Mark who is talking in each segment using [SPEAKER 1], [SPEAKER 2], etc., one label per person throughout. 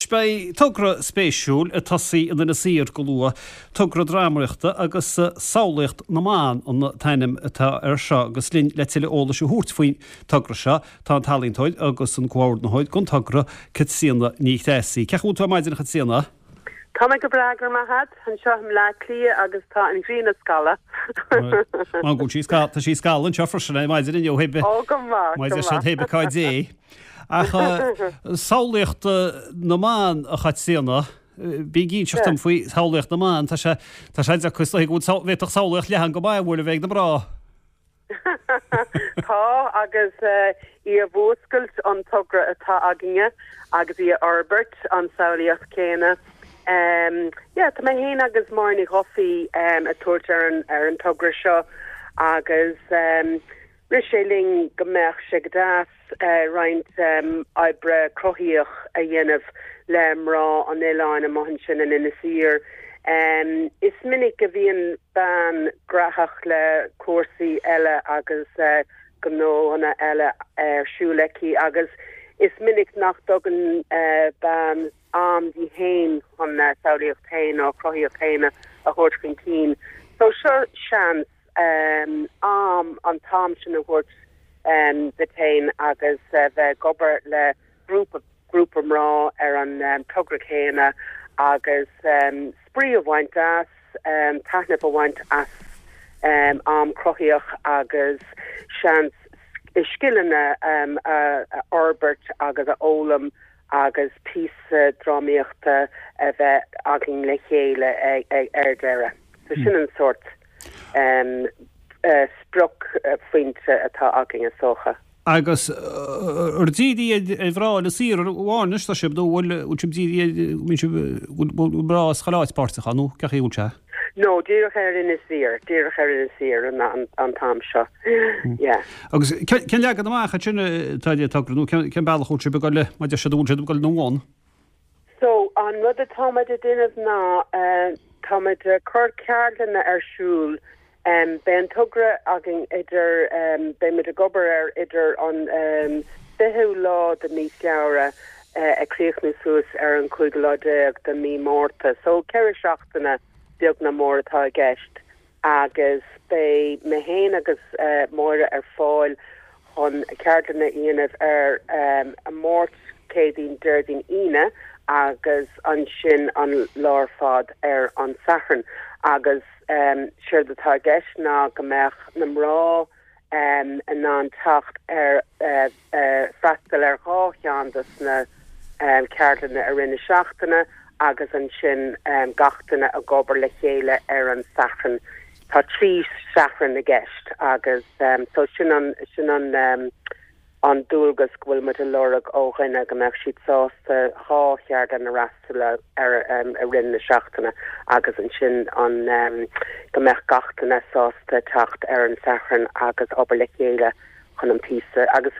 [SPEAKER 1] beidh togra spéisiúil ag tosaí in Inis Oírr go luath, togra drámaíochta agus Samhlaíocht na mBan an t-ainm atá air seo agus linn le tuilleadh eolais a thabhairt faoin togra seo tá an t-ealaíontóir agus an comhordaitheoir don togra, Caitríona Ní Threasaigh. Cén chaoi a bhfuil tú ar maidin a Chaitríona?
[SPEAKER 2] Tá mé go breá, go raibh maith agat, anseo i mBleá Cliath agus tá an ghrian ag scalladh.
[SPEAKER 1] Má go bhfuil sí, tá sí ag scalladh anseo freisin ar maidin inniu, hé
[SPEAKER 2] Ó, go maith, go maith.
[SPEAKER 1] Má hé cá dté. Ach samhlaíocht na mban, a Chaitríona, bí ag inseacht dom faoi shamhlaíocht na mban, tá sé, tá sé deacair, is dóigh go bhfuil, bhféadfadh samhlaíocht leathan go maith a bhualadh bheith ag na mná.
[SPEAKER 2] Tá, agus í a mhúscailt an togra atá againne agus í a fhorbairt, an samhlaíocht chéanna. Yeah, tá mé féin agus Máire Ní Dhufaigh ag tabhairt ar an ar an togra seo agus rith sé linn go mbeadh sé go deas roinnt oibre cruthaíoch a dhéanamh le mná an oileáin amuigh ansin in Inis Oírr. Is minic a bhíonn bean graitheach le cúrsaí eile agus gnóanna eile ar siúl aici agus is minic nach dtugann bean am di féin chun a samhlaíocht féin nó a cruthaíocht féin a thabhairt chun cinn. So seo seans. am, an t-am sin a thabhairt duit féin agus bheith ag obair le grúpa, grúpa mná ar an togra céanna agus spraoi a bhaint as, taitneamh a bhaint as am cruthaíoch agus seans scileanna a fhorbairt agus a fhoghlaim agus píosa drámaíochta a bheith againn le chéile ar deireadh. So sin an sórt spriocphointe atá againn is dócha.
[SPEAKER 1] Agus ar dírithe ar mhná Inis Oírr amháin anois tá sibh nó bhfuil sibh dírithe ar, bhfuil mná as chuile áit páirteach ann nó cén chaoi a bhfuil sé?
[SPEAKER 2] No, díreach ar Inis Oírr, díreach ar Inis Oírr an t-am seo, yeah.
[SPEAKER 1] Agus cén leagan amach ansin atá ar an togra nó cén bealach a bhfuil sibh ag dul, mar a deir siad, an bhfuil sibh ag dul ina bhun?
[SPEAKER 2] So, an rud atáimid ag déanamh ná táimid ag cur ceardlanna ar siúl. Beidh an togra againn idir, beimid ag obair air idir an 20ú lá de mí Feabhra ag críochnú suas ar an cúigiú lá déag de mí Márta. So, 4 seachtaine beag ná mór atá i gceist. agus beidh mé féin agus Máire ar fáil chun ceardlanna a dhéanamh ar an Máirt, Céadaoin, Déardaoin, Aoine agus ansin an lá ar fad ar an Satharn agus séard atá i gceist ná go mbeadh na mná in ann teacht ar freastal ar dhá cheann dos na ceardlanna i rith na seachtaine agus ansin gach duine ag obair le chéile ar an Satharn. Tá 3 Shatharn i gceist agus so sin an sin an an dualgas go bhfuil muid a lorg ó dhuine go mbeadh siad sásta dhá cheardlann a fhreastal ar i rith na seachtaine agus ansin an go mbeadh gach duine sásta teacht ar an Satharn agus obair le chéile chun an píosa agus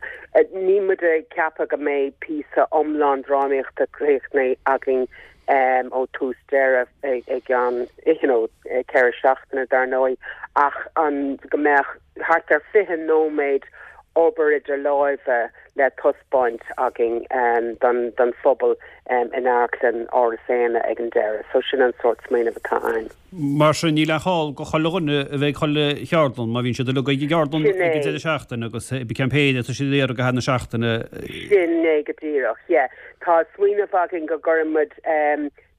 [SPEAKER 2] níl muid ag ceapadh go mbeidh píosa iomlán drámaíochta críochnaithe againn ó tús deireadh i gceann you know 4 seachtaine dar ndóigh ach an go mbeadh thart ar 20 nóiméad obair idir láimhe le taispeáint againn don phobal in Amharclann Áras Éanna ag an deireadh. So sin an sórt smaoineamh atá ann.
[SPEAKER 1] Mar sin, níl aon chall go chuile dhuine a bheith ag chuile cheardlann, má bhíonn siad uilig ag an gceardlann ag an deireadh seachtaine agus cén péire atá siad ag iarraidh ag deireadh na seachtaine.
[SPEAKER 2] Sin é go díreach, yeah. Tá smaoineamh againn go gcuireann muid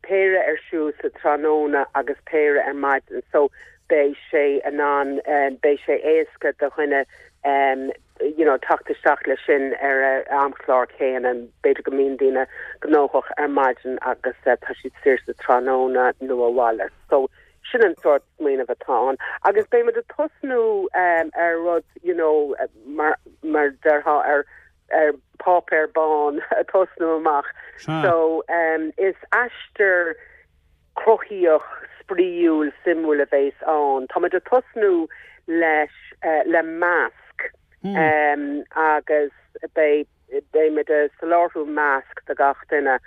[SPEAKER 2] péire ar siúl sa tráthnóna agus péire ar maidin so beidh sé in ann, beidh sé éasca do dhuine you know teacht isteach leis sin ar a amchlár céanna. B'fhéidir go mbíonn daoine gnóthach ar maidin agus tá siad saor sa tráthnóna nó a mhalairt. So sin an sórt smaoineamh atá ann. Agus beidh muid ag tosnú ar rud you know mar mar déarfá ar ar páipéar bán ag tosnú amach. So is aistear cruthaíoch, spraíúil, suimiúil a bheas ann. Táimid ag tosnú leis le masc agus beidh beimid ag soláthrú masc do gach duine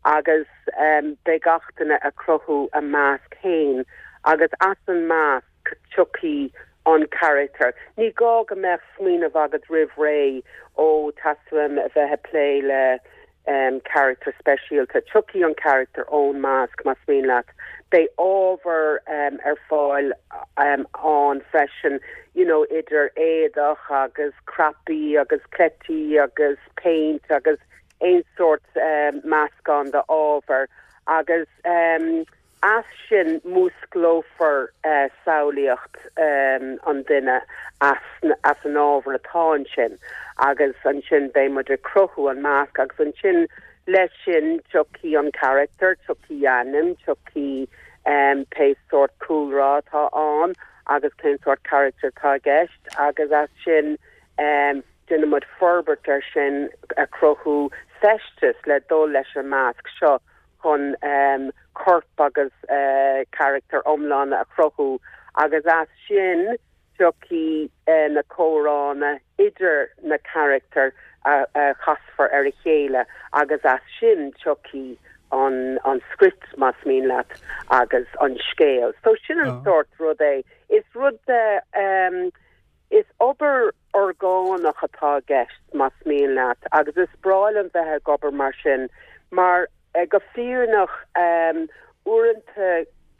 [SPEAKER 2] agus beidh gach duine ag cruthú a masc féin agus as an masc tiocfaidh an carachtar. Ní gá go mbeadh smaoineamh agat roimh ré, ó, teastaíonn uaim a bheith ag plé le. Carachtar speisialta. Tiocfaidh an carachtar ón masc, más mian leat. Beidh ábhar ar fáil ann freisin, you know, idir éadach agus cnaipí agus cleití agus péint agus aon sórt meascán d'ábhar agus. As sin músclófar samhlaíocht an duine as an ábhar atá ansin agus ansin beidh muid ag cruthú an masc agus ansin leis sin tiocfaidh an carachtar, tiocfaidh a ainm, tiocfaidh pé sórt cúlra atá ann agus cén sórt carachtar atá i gceist agus as sin déanfaidh muid forbairt air sin ag cruthú feisteas le dul leis an masc seo. chun corp agus carachtar iomlán a chruthú agus as sin tiocfaidh na comhránna idir na carachtair a chasfar ar a chéile agus as sin tiocfaidh an script, más mian leat, agus an scéal. So sin an sórt rud é. Is rud is obair orgánach atá i gceist, más mian leat, agus is breá liom bheith ag obair mar sin, mar go fírinneach, uaireanta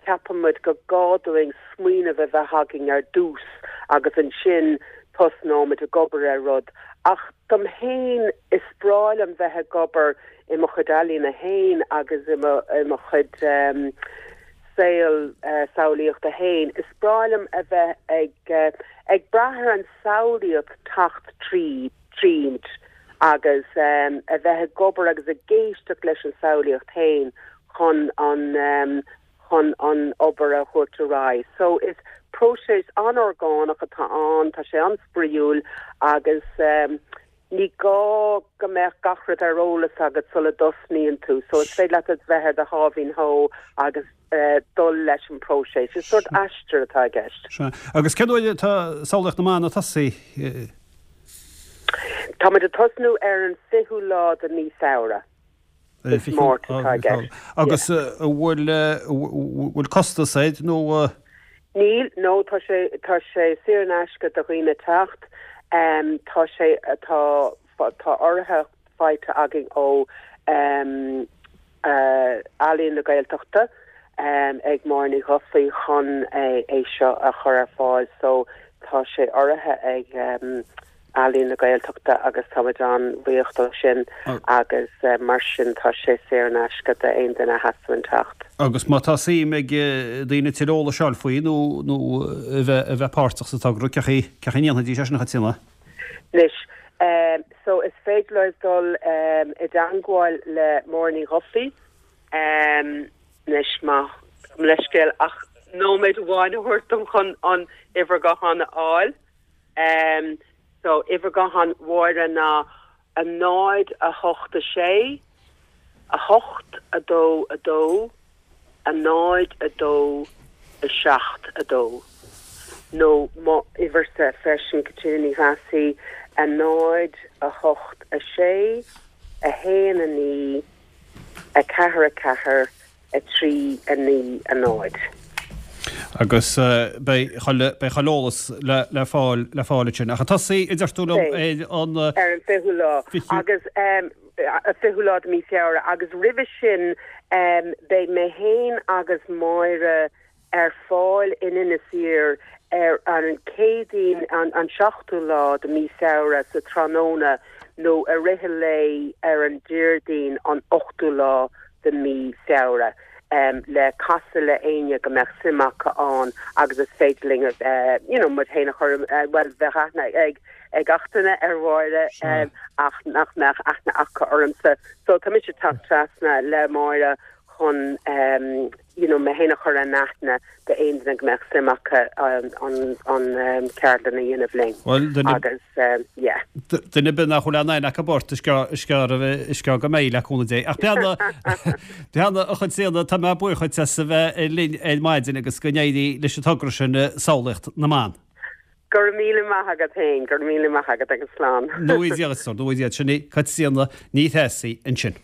[SPEAKER 2] ceapann muid go gá dúinn smaoineamh a bheith againn ar dtús agus ansin tosnóimid ag obair ar rud. Ach dom fhéin, is breá liom bheith ag obair i mo chuid ealaíne fhéin agus i mo, i mo chuid saol samhlaíochta fhéin, is breá liom a bheith ag, ag brath ar an samhlaíocht teacht tríd, tríd agus a bheith ag obair agus ag éisteacht leis an samhlaíocht fhéin chun an, chun an obair a thabhairt ar aghaidh. So is próiseas an-orgánach atá ann, tá sé an-spraíúil agus ní gá go mbeadh gach rud ar eolas agat sula dtosnaíonn tú. So is féidir leat a bheith ar do sháimhín shó agus dul leis an bpróiseas. Is sórt aistear atá i gceist.
[SPEAKER 1] Sea. Agus cén uair atá Samhlaíocht na mBan ag tosaí?
[SPEAKER 2] Táimid ag tosnú ar an 20ú lá de mí Feabhra. Is Máirt atá i gceist.
[SPEAKER 1] Agus an bhfuil, bhfuil costas air nó?
[SPEAKER 2] Níl, no, tá sé, tá sé saor in aisce do dhaoine teacht. Tá sé, tá, tá urraithe faighte againn ó Ealaín na Gaeltachta ag Máire Ní Dhufaigh chun é seo a chur ar fáil so tá sé urraithe ag Ealaín na Gaeltachta agus táimid an-bhuíoch dó sin agus mar sin tá sé saor in aisce d'aon duine a theastaíonn teacht.
[SPEAKER 1] Agus má tá suim ag daoine tuilleadh eolais a fháil faoi nó nó a bheith a bheith páirteach sa togra, cén chaoi cén chaoi a ndéanfaidís é sin a Chaitríona?
[SPEAKER 2] Anois, so is féidir leo dul i dteangmháil le Máire Ní Dhufaigh anois má gabh mo leithscéal ach nóiméad amháin a thabhairt dom chun an uimhir gutháin a fháil. So, uimhir gutháin Mháire ná 0, 8, 6, 8, 2, 2, 0, 2, 7, 2. Nó mo uimhirse freisin, Caitríona Ní Threasaigh, 0, 8, 6, 1, 9, 4, 4, 3, 9, 0.
[SPEAKER 1] Agus beidh chuile, beidh chuile eolas le, le fáil, le fáil ansin. Ach ag tosaí, a deir tú liom, ar
[SPEAKER 2] an. Ar an 20ú lá. Agus, 20ú lá de mí Feabhra. Agus roimhe sin, beidh mé fhéin agus Máire ar fáil in Inis Oírr ar an Céadaoin an 7ú lá de mí Feabhra sa tráthnóna nó i rith an lae ar an Déardaoin an 8ú lá de mí Feabhra le casadh le éinne go mbeadh suim acu ann agus is féidir linn you know muid féin a chur bhuel bheadh aithne ag ag gach duine ar Mháire ach nach mbeadh aithne acu ormsa so tá mise ag teacht trasna le Máire chun you know mé féin a chur in aithne d'aon duine go mbeadh suim acu an ceardlann a dhéanamh linn.
[SPEAKER 1] Bhuel, duine, Agus yeah. duine ar bith nach bhfuil aon aithne acu ort, is gearr, is gearr, is gearr go mbeidh le cúnamh Dé. Ach beanna, beanna a Chaitríona, tá mé buíoch dhuit as a bheith linn ar maidin agus go n-éirí leis an togra sin, Samhlaíocht na mBan.
[SPEAKER 2] Go raibh míle maith agat féin, go raibh míle maith agat agus slán.
[SPEAKER 1] Nó í Dia, nó í Dia, sin í Caitríona Ní Threasaigh ansin.